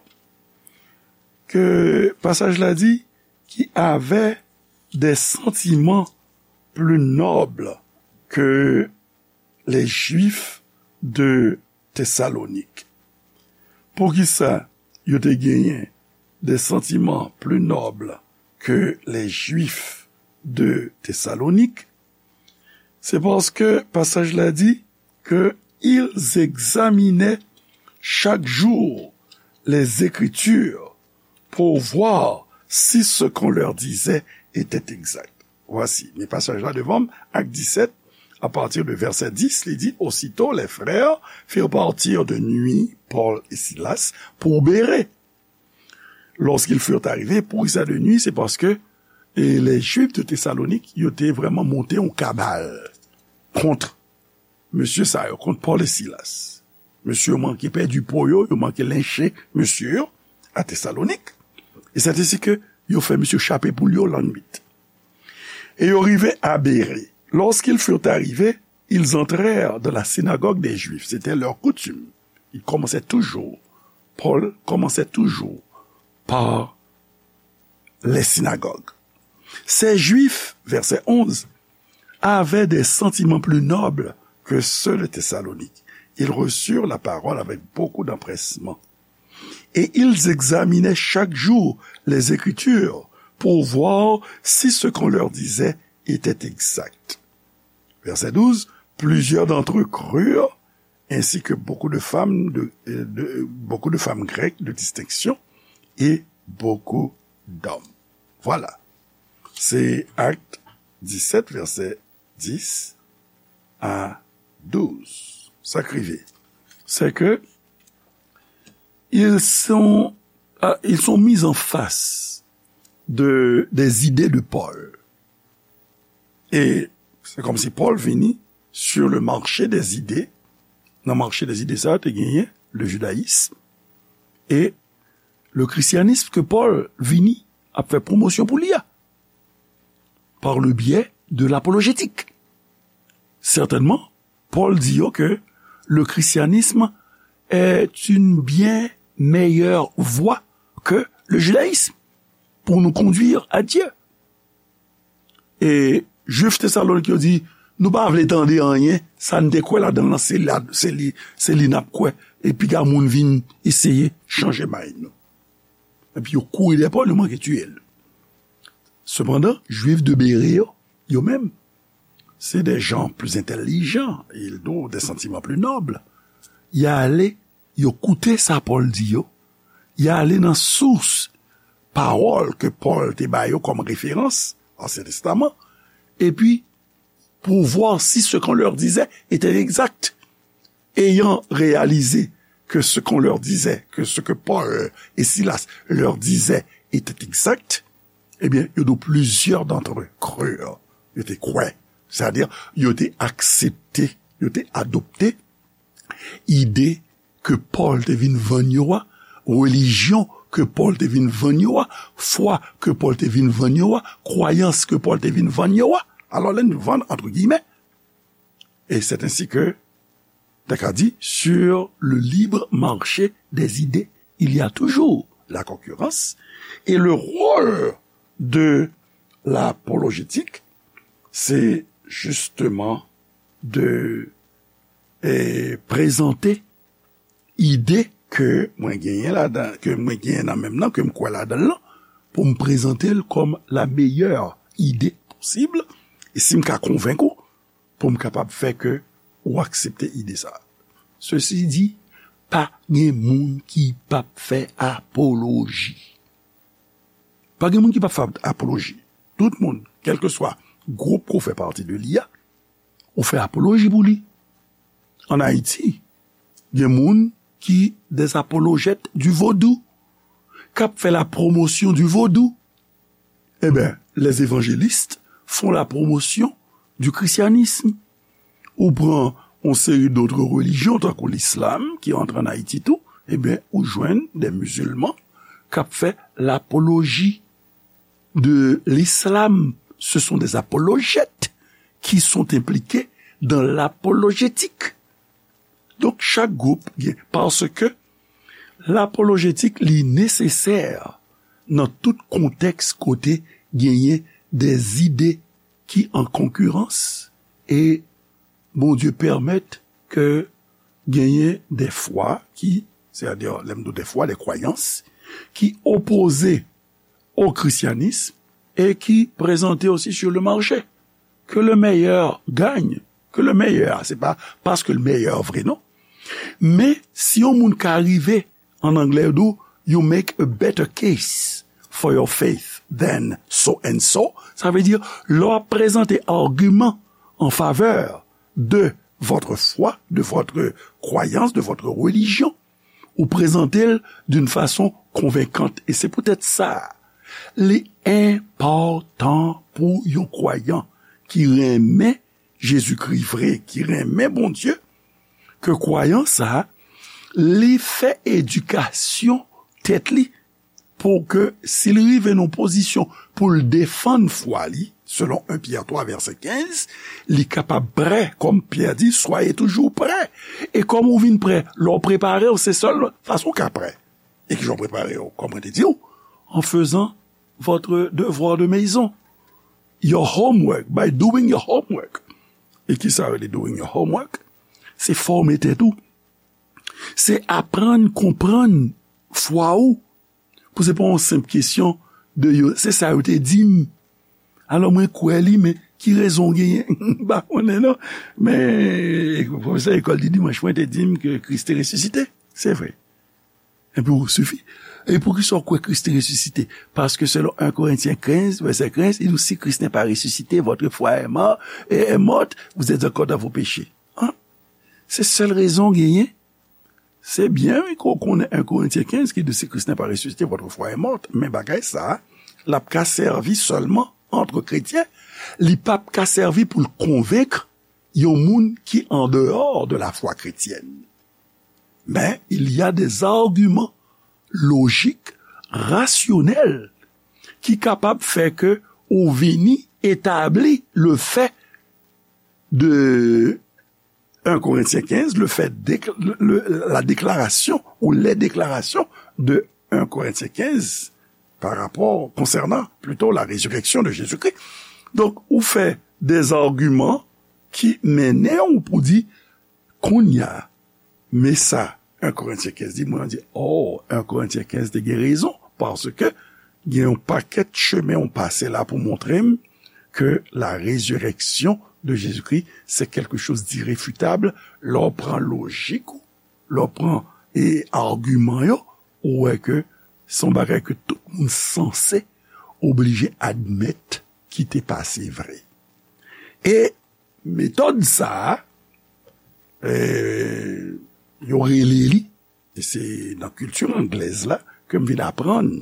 ke pasaj la di, qui avaient des sentiments plus nobles que les Juifs de Thessalonique. Poukisa yo te genyen des sentiments plus nobles que les Juifs de Thessalonique? Se paske pasaj la di que ils examinaient chaque jour les Écritures pour voir si ce qu'on leur disait était exact. Voici, men pasaj la devan m, Actes dix-sept, à partir de verset dix, li di, Aussitôt les frères firent partir de nuit Paul et Silas pour Bérée. Lorsqu'ils furent arrivés, poukisa de nuit, se paske, e, les Juifs de Thessalonique, yo te vrèman monte yon kabal kont mesye sa yo, kont Paul et Silas. Mesye yo manke pèdi po yo, yo manke lenche mesye yo a Thessalonique. Et c'est ainsi que yo fè mesye chape poul yo lannwit. E yo rive a Bérée. Lorsqu'ils furent arrivés, ils entrèrent dans la synagogue des Juifs. C'était leur coutume. Ils commençaient toujours, Paul commençait toujours par les synagogues. Ces Juifs, verset onze, avaient des sentiments plus nobles que ceux de Thessalonique. Ils reçurent la parole avec beaucoup d'empressement. Et ils examinaient chaque jour les Écritures pour voir si ce qu'on leur disait était exact. Verset douze, plusieurs d'entre eux crurent, ainsi que beaucoup de femmes de, de, beaucoup de femmes grecques de distinction et beaucoup d'hommes. Voilà. C'est Actes dix-sept, verset dix à douze. Sa k rive, c'est que ils sont, euh, ils sont mis en face de, des idées de Paul. E se kòmsi Pòl vini sur le marché des idées. Nan mache dèzide sa a, te genyen le judaïsme et le christianisme ke Pòl vini ap fè pwomosyon pou li a, par le biais de l'apologétique. Certainement, Pòl di yo ke le christianisme est une bien meilleure voie que le judaïsme pour nous conduire à Dieu. E Jwif Tesalonik yo di, nou pa vle tande anyen, sa n te kwè ladan l lan, se la, se li, se li n ap kwè. E piga moun vin eseye chanje may nou. Epi yo kouri dèyè Pòl, yo manke tiye l. Sepandan, Jwif de Bere yo, yo menm, se des gens plus intelligents, ils ont des sentiments plus nobles. Y ale, yo koute sa Pòl di yo, y ale nan sous pawòl ke Pòl te ba yo kòm referans, Ansyen Testaman, epi pour voir si ce qu'on leur disait était exact. Ayant réalisé que ce qu'on leur disait, que ce que Paul et Silas leur disaient était exact, ebyen, yo di w, plusieurs d'entre eux crurent. Yo te kwè. Sètadi, yo te aksepte, yo te adopte ide ke Pòl te vin vann yo a, relijyon ke Pòl te vin vann yo a, fwa ke Pòl te vin vann yo a, kwayans ke Pòl te vin vann yo a. Alò, lè n vann, entre guillemets, et c'est ainsi que, ta ka di, sur le libre marché des idées, il y a toujours la concurrence, et le rôle de l'apologétique, c'est justement de, eh, prezante ide ke mwen genyen ladan, ke mwen genyen nan men m nan, ke m kwè ladan l lan, pou m prezante l kòm la meilleure idée possible, e si m ka konvenk ou, pou m kapab fè ke ou aksepte ide sa a. Sesi di, pa gen moun ki p ap fè apoloji. Pa gen moun ki p ap fè apoloji. Tout moun, kèlkeswa gwoup ke w fè pati de li a, ou fè apoloji pou li. Ann Ayiti, gen moun ki des apologettes du vaudou, k ap fè la promotion du vaudou. Eh ben, les évangélistes font la promotion du christianisme. Ou pran yon seri d'autres religions, tankou l'islam, ki antre ann Ayiti tou, eh ben, ou jwenn des musulmans k ap fè l'apologie de l'islam. Ce sont des apologettes qui sont impliqués dans l'apologétique. Donk, chak gwoup gen, paske lapolojetik, li nesesè nan tout kontèks kote genyen de zide ki an konkirans, e Bondye pèmèt ke genyen de fwa ki, sètadi, lè m di de fwa, de kwayans, ki opoze o krisyanism e ki prezante osi sur le marché. Que le meilleur gagne. Que le meilleur, se pa paske le meilleur vre, non. Men, si yon moun ka rive, an anglè, yo di, you make a better case for your faith than so and so, sa vle di, lè w ap prezante agiman an favè de votre foi, de votre croyance, de votre religion, ou prezante l d'une façon convaincante. E se poutèt sa, li enpòtan pou yon kwayan ki renmen Jezikri vre, ki renmen Bondye, ke kwayan sa a, li fè edikasyon tèt li pou ke si l rive nan pozisyon pou l defann fwa li, selon en Pyè twa vèsè kenz, li kapab prè, kòm Pyè di, soyez toujours prêts. E kòm ou vin prè, lè w prepare w, se sèl fason w ka prè. E kijan w prepare w? Kòm mwen te di w, en faisant votre devoir de maison, your homework, by doing your homework. E ki sa yo rele doing your homework? Se fòme tèt ou. Se aprann konprann fwa ou. Pou se pa yon senp kesyon de yo, se sa yo te di m. Alò, mwen kwè li, men ki rezon w genyen? M pa konnen, non. Men, pwofesè lekòl di dimanch mwen te di m ke Kris te resisite. Se vre. Epi ou sifi. E poukisa w kwè Kris te resisite? Paske selon en Korentyen kenz, vèsè kenz, il dit, si Christ n'est pas ressuscité, votre foi est mort, est morte, vous êtes encore dans vos péchés. Hein? Se sèl rezon w genyen. Se byen, wi, ke w konnen en Korentyen kenz ki di, si Christ n'est pas ressuscité, votre foi est morte. Men bagay sa a, l ap ka sèvi sèlman ant kretyen. Li p ap ka sèvi pou l konvenk yon moun ki an dehors de la foi chrétienne. Men, il y a des arguments logiques, rationnels, ki kapab fè ke ou vini etabli le fait de en Korentyen kenz, le fait de, le, le, la déclaration ou les déclarations de en Korentyen kenz par rapport, concernant plutôt la résurrection de Jésus-Christ. Donk, ou fè des arguments ki mennen w pou di, kounye a, men sa en Korentyen kenz di, mwen di, oh, en Korentyen kenz te gen rezon, paske gen yon pakèt chemen w pase la pou montre m ke la résurrection de Jésus-Christ, c'est quelque chose d'irréfutable. Lè w pran lojik ou, lè w pran, e, agiman yo, ou wè ke se yon bagay ke tout moun sanse oblije admèt ki te pase vre. E metòd sa a, e, yo rele li, e se nan kilti anglèz la ke m vin aprann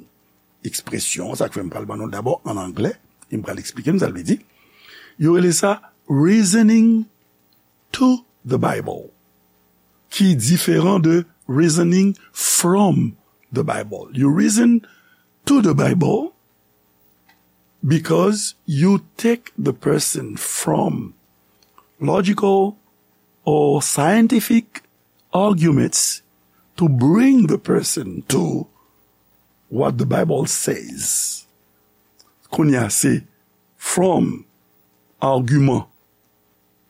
ekspresyon, sa k fè m pral ban nou l dabò an anglè, e m pral eksplike n sa l vle di. Yo rele sa reasoning to the Bible, ki diferan de reasoning from the Bible. You reason to the Bible because you take the person from logical or scientific arguments to bring the person to what the Bible says. Kounye a, se from agiman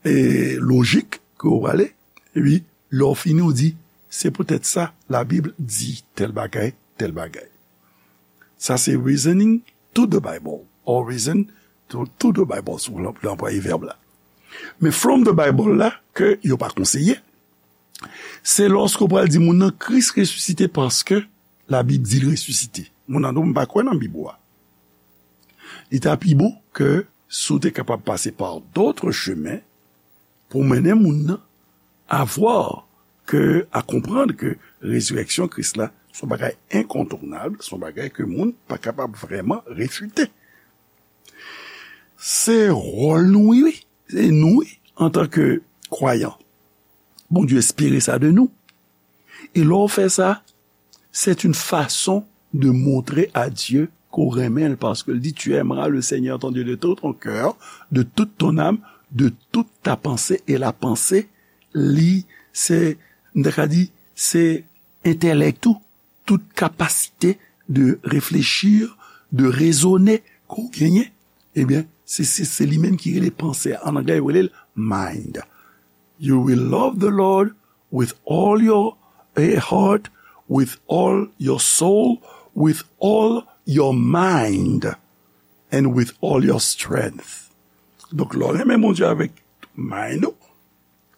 e lojik ke w prale, epi lè w fini, w di, se poutèt sa Labib di tèl bagay, tèl bagay. Sa se reasoning to the Bible, or reason to, to the Bible, si w vle anplwaye vèb la. Men from the Bible la, ke yo pa konseye, se lòske w pral di moun nan Kris resisite paske Labib di l resisite. Moun nan di w, m pa kwè nan Bib ou a. Li ta pi bon ke si w te kapab pase par d'autres chemins pou mennen moun nan a voir ke, a konprann ke rezirèksyon Kris la se yon bagay enkontounab, se yon bagay ke moun pa kapab vrèman refite. Se wòl nou, wi, wi. Se nou, wi, antanke kwayan. Bondye espere sa de nou. E lè w fè sa, c'est une façon de montrer à Dieu ke w renmen l, paske l di, tu aimeras le Seigneur ton Dieu de tout ton cœur, de toute ton âme, de toute ta pensée, e la panse, li, se, m ta ka di, se entèlèk ou, tout kapasite de réfléchir, de raisonner ke w genyen, ebyen, se, se, se li menm ki rele panse a. An anglè, yo rele l mind. You will love the Lord with all your, eh, heart, with all your soul, with all your mind, and with all your strength. Donk, lè w renmen Bondye avèk tout mind ou,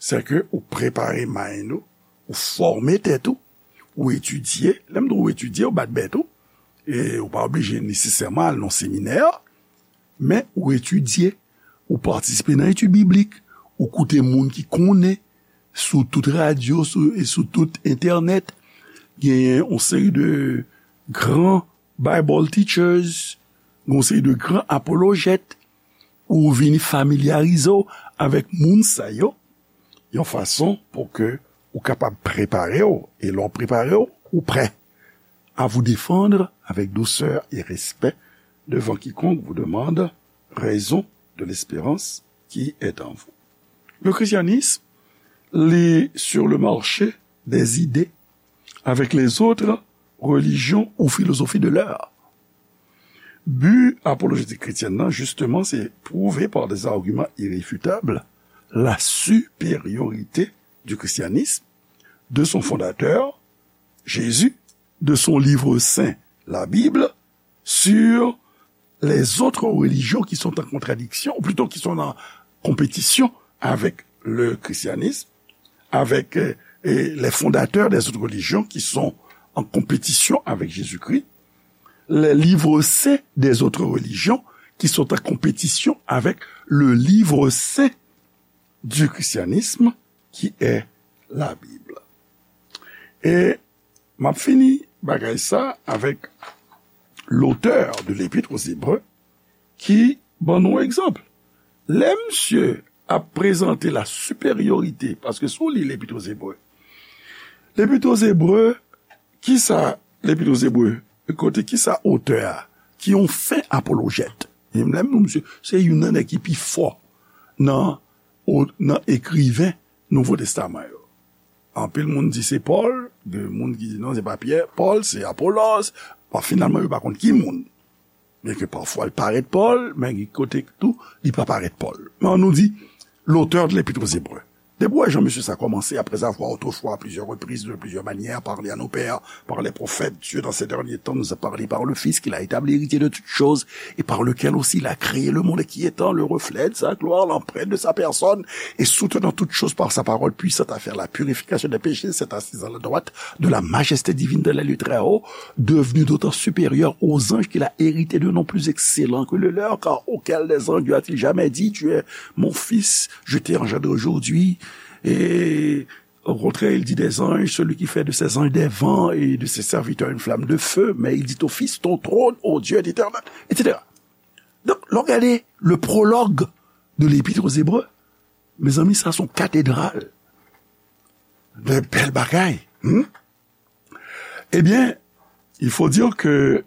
se ke ou prepare mind ou, ou fòme tèt ou, ou etidye. Lè m di w etidye, ou bat bèt ou. E ou pa oblije nesesèman al nan seminè, men ou etidye, ou patisipe nan etid biblik, ou koute moun ki konnen sou tout radyo, sou, e sou tout entènèt. Genyen yon seri de gran Bible teachers, yon seri de gran apolojèt, ou vini familyarize w avèk moun sa yo, yon fason pou ke ou kapab prepare w, e lè w prepare w, ou prè à vous défendre avec douceur et respect devant quiconque vous demande raison de l'espérance qui est en vous. Le christianisme, li sur le marché des idées avec les autres religions ou philosophies de l'heure. Bi apolojétik kretyèn nan, jisteman, se prouve par des arguments irréfutables la supériorité du christianisme, de son fondateur, Jésus, de son livre saint, la Bible, sur les autres religions qui sont en contradiction, ou plutôt qui sont en compétition avec le christianisme, avec, euh, et les fondateurs des autres religions qui sont en compétition avec Jésus-Christ, les livres saints des autres religions qui sont en compétition avec le livre saint du christianisme, qui est la Bible. E m ap fini bagay sa avèk l'auteur de l'Épître aux Hébreux ki ban nou egzanp. Lè misye ap prezante la supériorité, paske si w li L'Épître aux Hébreux, L'Épître aux Hébreux, kisa L'Épître aux Hébreux, kote kisa otè a, ki yon fen apolojèt. E lè m di misye, se youn nan nèg ki pi fò nan, o-, nan ekriven Nouvo Testaman yo. Anpil moun di se Pòl, gen moun ki di non, se pa Pyè, Pòl, se Apolòs. Bon, finalman, yo pa konn ki moun. Byenke pafwa l parèt Pòl, men gen kote tou, li pa parèt Pòl. Men ann nou di, l'auteur de l'Épître aux Hébreux. Depi w wè jan mesye sa kòmanse, après avoir autrefois, à plusieurs reprises, de plusieurs manières, parlé à nos pères, par les prophètes, Dieu, dans ces derniers temps, nous a parlé par le Fils, qu'il a établi héritier de toutes choses, et par lequel aussi il a créé le monde, et qui étant le reflet de sa gloire, l'empreinte de sa personne, et soutenant toutes choses par sa parole puissante à faire la purification des péchés, s'est assis à la droite de la majesté divine dans les lieux très hauts, devenu d'autant supérieur aux anges qu'il a hérité d'un nom plus excellent que le leur, car auquel des anges Dieu a-t-il jamais dit, tu es mon fils, je t'ai engendré aujourd'hui, et au contraire, il dit des anges, celui qui fait de ses anges des vents et de ses serviteurs une flamme de feu, mais il dit au Fils, ton trône, ô Dieu, est éternel, et cetera. Donk, lè w gade le prologue de l'Épître aux Hébreux, mezanmi, sa se yon katedral de bèl bagay. Hmm? Eh bien, il faut dire que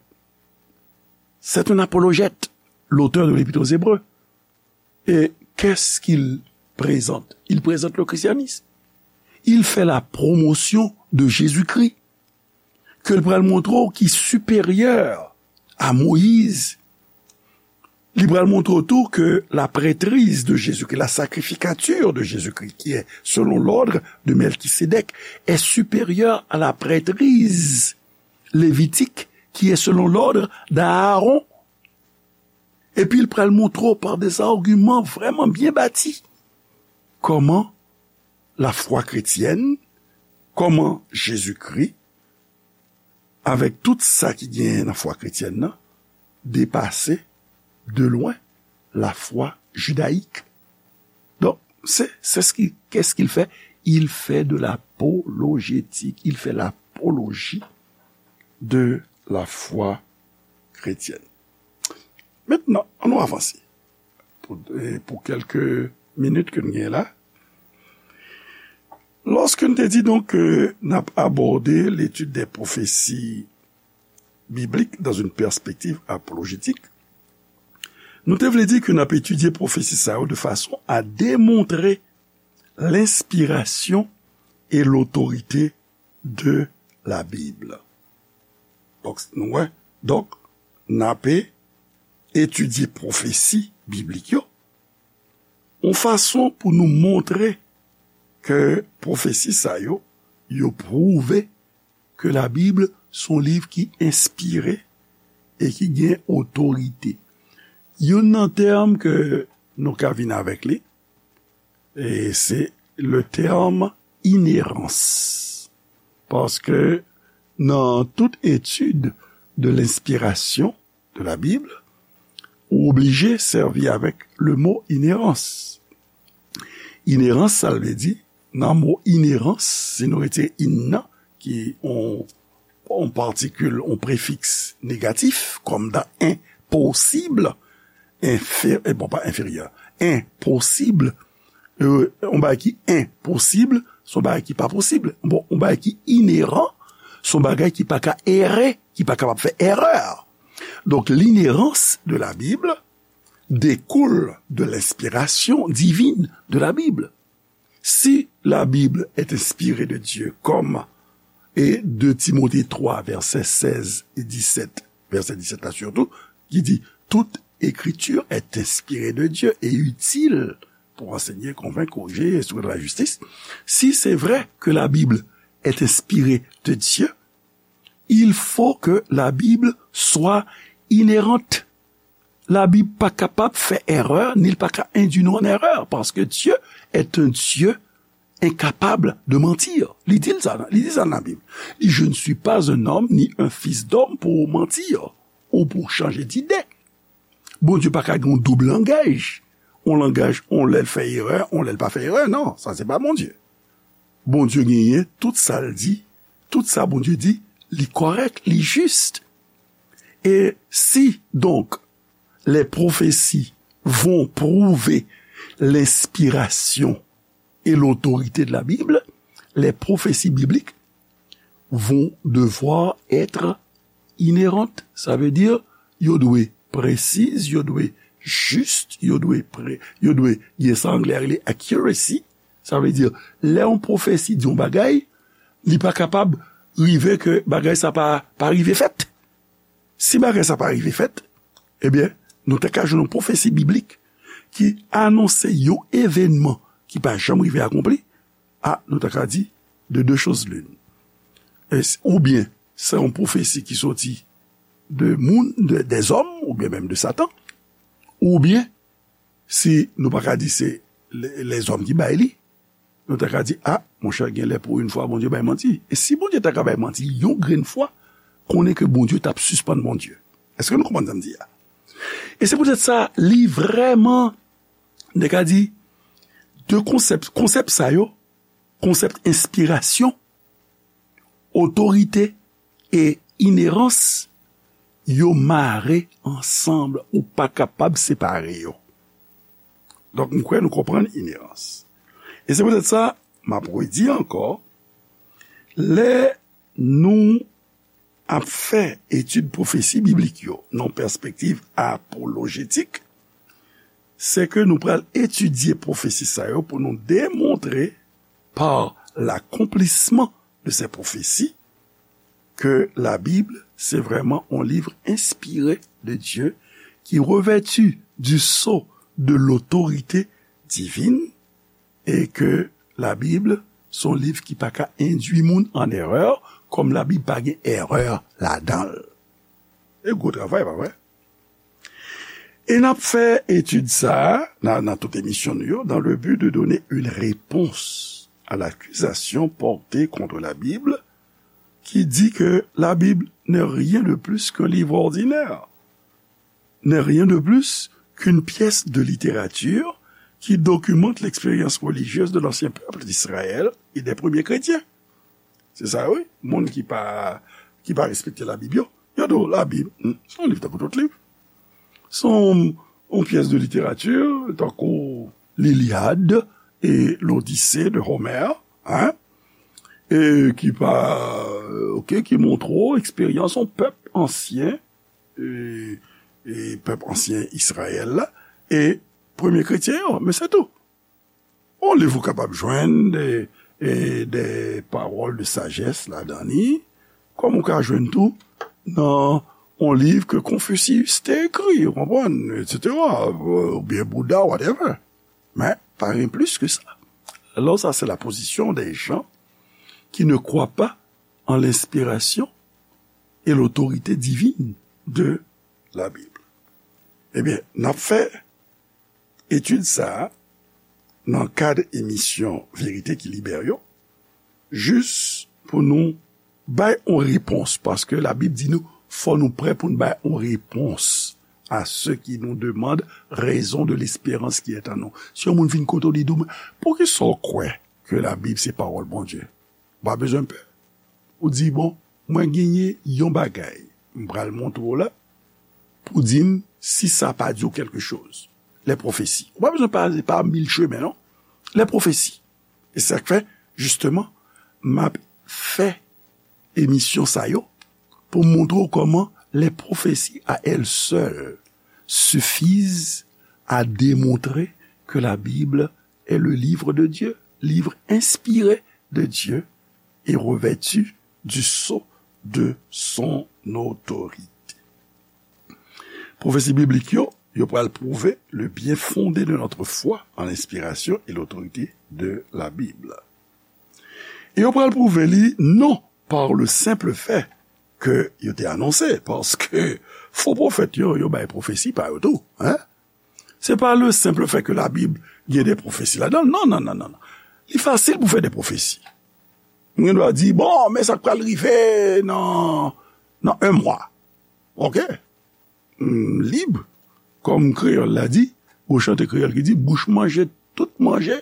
c'est un apologète, l'auteur de l'Épître aux Hébreux. Et qu'est-ce qu'il présente? Il présente le christianisme. Il fait la promotion de Jésus-Christ, ke l pral montre w ki siperyè a Moyiz. Li pral montre w tou que la prêtrise de Jésus-Christ, la sacrificature de Jésus-Christ, qui est selon l'ordre de Melchisédek, est supérieure à la prêtrise lévitique, qui est selon l'ordre d'Aaron. Epi l pral montre w par des arguments vraiment bien bâtis kòman lafwa kretyèn, kòman Jezikri, avèk tout sa ki genyen nan fwa kretyèn nan, depase de lwen lafwa jidayik. Donk, se, se ce qui, qu'est-ce qu'il fait? Il fait de l'apologétique, il fait l'apologie de la foi chrétienne. Mentnan, ann nou avanse. Pou, e pou kèlke minit ke n genyen la, lòske n te di donk ke n ap abòde l'étude des prophéties bibliques dans une perspective apologétique, nou te vle di ke n ap etidye pwofesi sa yo de fason a demontre lenspirasyon e lotorite de la Bible. Donk, nou wè, donk, n ape etidye pwofesi biblik yo, yon fason pou nou montre ke pwofesi sa yo, yo pwouve ke Labib se yon liv ki enspire e ki gen otorite. Youn nan tèm ke nou ka vin avèk li, e se le tèm inerans. Paske nan tout etid de lenspirasyon de la Bib, ou oblije sèvi avèk le mo inerans. Inerans, sa l vle di, nan mo inerans, si nou retire in nan, ki yon, yon patikil, yon prefiks negatif, kòm dans impossible, enfè-, eh, bon, pa enferyè, enposib, euh, yon bagay ki enposib, se yon bagay ki pa posib. Bon, yon bagay ki ineran, se yon bagay ki pa ka ere, ki pa kapab fè erè. Donc, l'inhérence de la Bible découle de l'inspiration divine de la Bible. Si la Bible est inspirée de Dieu, comme et deux Timothée trois, verset seize et dix-sept, verset dix-sept là surtout, qui dit, toute écriture est inspirée de Dieu et utile pour enseigner, convaincre, corriger, instruire dans la justice. Si c'est vrai que la Bible est inspirée de Dieu, il faut que la Bible soit inhérente. Labib pa kapab fè erè, ni l pa ka endui nou an erè, paske Dieu est un Dieu incapable de mentir. Li di l sa, li di sa nan Labib. Li, je ne suis pas un homme, ni un fils d'homme pour mentir, ou pour changer d'idée. Bondye pa ka gen yon doub langaj. Yon langaj, yon lè l fè erè, yon lè l pa fè erè. Non, sa se pa Bondye. Bondye genyen, tout sa l di, tout sa Bondye di, li kòrèk, li jis. Et si, donc, les prophéties vont prouver l'inspiration et l'autorité de la Bible, les prophéties bibliques vont devoir être inhérentes. Sa vle di, yo dwe presiz, yo dwe jis, yo dwe pre-, yo dwe gen sa anglè a rele accuracy. Sa vle di, lè yon pwofesi di yon bagay, li pa kapab rive ke bagay sa pa, pa rive fèt. Si bagay sa pa rive fèt, ebyen, nou te ka jwenn yon pwofesi biblik ki anonse yon evènman ki pa janm rive akonpli, a, nou te ka di, de deux choses l'une. E s-, oubyen, se yon pwofesi ki soti de moun, de, des hommes, oubyen menm de Satan, oubyen, si nou pa ka di se le-, lèzòm ki bay li, nou ta ka di, a, monchè, gen lè pou yon fwa Bondye bay manti. E si Bondye ta ka bay manti yon grenn fwa, konnen ke Bondye t ap sispann Bondye. Èske nou konprann sa m di a? E se poutèt sa, li vrèman, nèg ka di, de konsèp, konsèp sa yo, konsèp enspirasyon, otorite e inerans, yo mare ansanm, ou pa kapab separe yo. Donk, m kwè nou konprann inerans. E se poutèt sa, m ap redi ankò, lè nou ap fè etid pwofesi biblik yo nan pèspektiv apolojetik, se ke nou pral etidye pwofesi sa yo pou nou demontre par l'accomplissement de ces prophéties que la Bible, c'est vraiment un livre inspiré de Dieu qui revêtu du sceau de l'autorité divine et que la Bible, se yon liv ki pa ka endui moun an erè, kòm Labib pa gen erè ladan l. E gwo travay, pa vre? E n ap fè etid sa a nan, nan tout emisyon nou yo, dans le but de donner une réponse à l'accusation portée contre la Bible qui dit que la Bible n'est rien de plus qu'un livre ordinaire, n'est rien de plus qu'une pièce de littérature qui documente l'expérience religieuse de l'ancien peuple d'Israël et des premiers chrétiens. Se sa, wi. Moun ki pa, ki pa respekte Labib yo, yo di w Labib, hmm, se yon liv tankou tout liv. Se yon, yon pyès de literati, tankou l'Iliade et l'Odyssée de Homère, hein, e ki pa, oke, ki montre w eksperyans yon pèp ansyen, e, e pèp ansyen Izrayèl la, e premye kretyen yo, men se tou. Yon liv ou kapab jwenn de, e, de pawòl de sajès ladan li, kòm ou ka jwenn tou nan yon liv ke Confucius te ekri, ou konprann, et cetera, oubyen Bouda, whatever. Men, pa gen plis ke sa. Alors, ça, c'est la position des gens qui ne croient pas en l'inspiration et l'autorité divine de la Bible. Ebyen, n ap fè etid sa a nan kad emisyon Verite ki Libere yo, jis pou nou bay yon repons, paske Labib di nou, fò nou prè pou n bay yon repons à ceux qui nous demandent raison de l'espérance qui est en nous. Si yon moun vin kote w, li di w, "Poukisa w kwè ke Labib se pawòl Bondye?" Ou pa bezwen pè. Ou di, "Bon, mwen genyen yon bagay m pral montre w la pou di m si sa pa di w kèlke choz." Lè pwofesi. Ou pa bezwen pase pa mil chemen, non. Lè pwofesi. E sa k fè, jisteman, m ap fè emisyon sa yo pou m montre w kòman les prophéties à elles seules suffisent à démontrer que la Bible est le livre de Dieu, livre inspiré de Dieu et revêtu du sceau de son autorité. Pwofesi biblik yo, yo pral pwouve le bien fondé de notre foi en l'inspiration et l'autorité de la Bible. E yo pral pwouve li non par le simple fait ke yo te anonse, paske fo pwofèt yo, yo bay pwofesi pa yo tou, hein? Se pa le simple fait que la Bible gen de pwofesi ladan l. Non, non, non, non, non. Li fasil pou fè de pwofesi. Mwen dwa di, "Bon, men sa k pral rive nan, nan un mwa." Ok? M lib, kòm kreyòl la di, gon chante kreyòl ki di, "Bouch manje tout manje,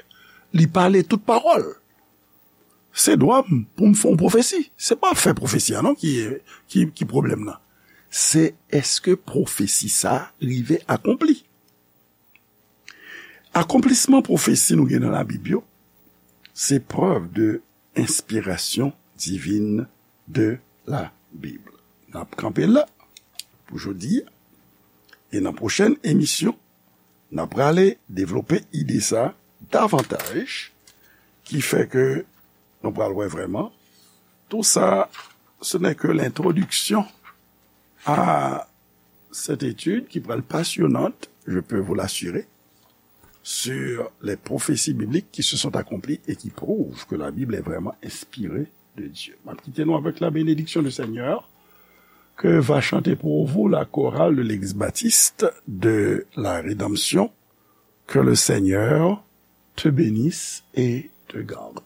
li pale tout pawòl." Se dwa m pou m fè yon pwofesi. Se pa fè pwofesi a non ki, ki, ki pwoblèm nan. Se èske pwofesi sa a rive akonpli? Akonplisman pwofesi nou gen nan Labib yo, se preuve de inspiration divine de la Bible. N ap kanpe la pou jodi a. E nan pwochèn emisyon, n ap prale devlope ide sa davantaj, ki fè ke nou pral wè vrèman. Tout ça, ce n'est que l'introduction à cette étude qui pral passionnante, je peux vous l'assurer, sur les prophéties bibliques qui se sont accomplies et qui prouvent que la Bible est vraiment inspirée de Dieu. M ap kite nou avec la bénédiction du Seigneur que va chanter pour vous la chorale de l'église baptiste de la Rédemption. Que le Seigneur te bénisse et te garde.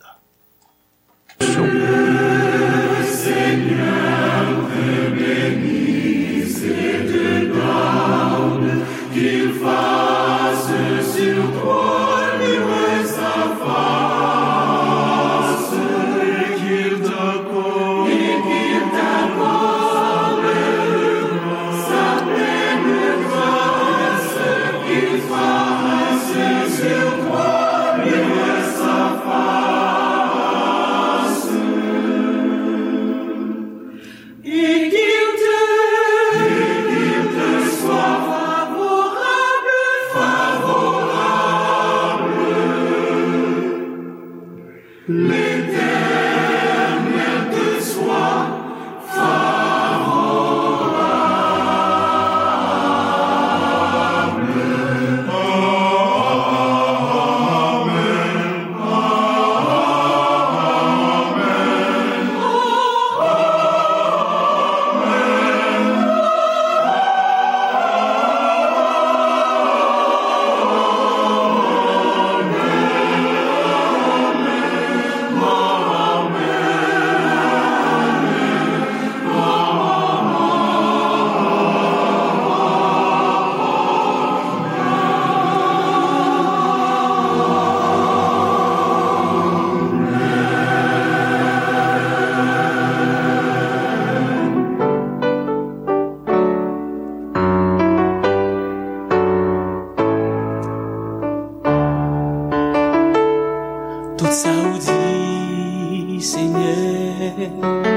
Tout sa ou di, Senyè,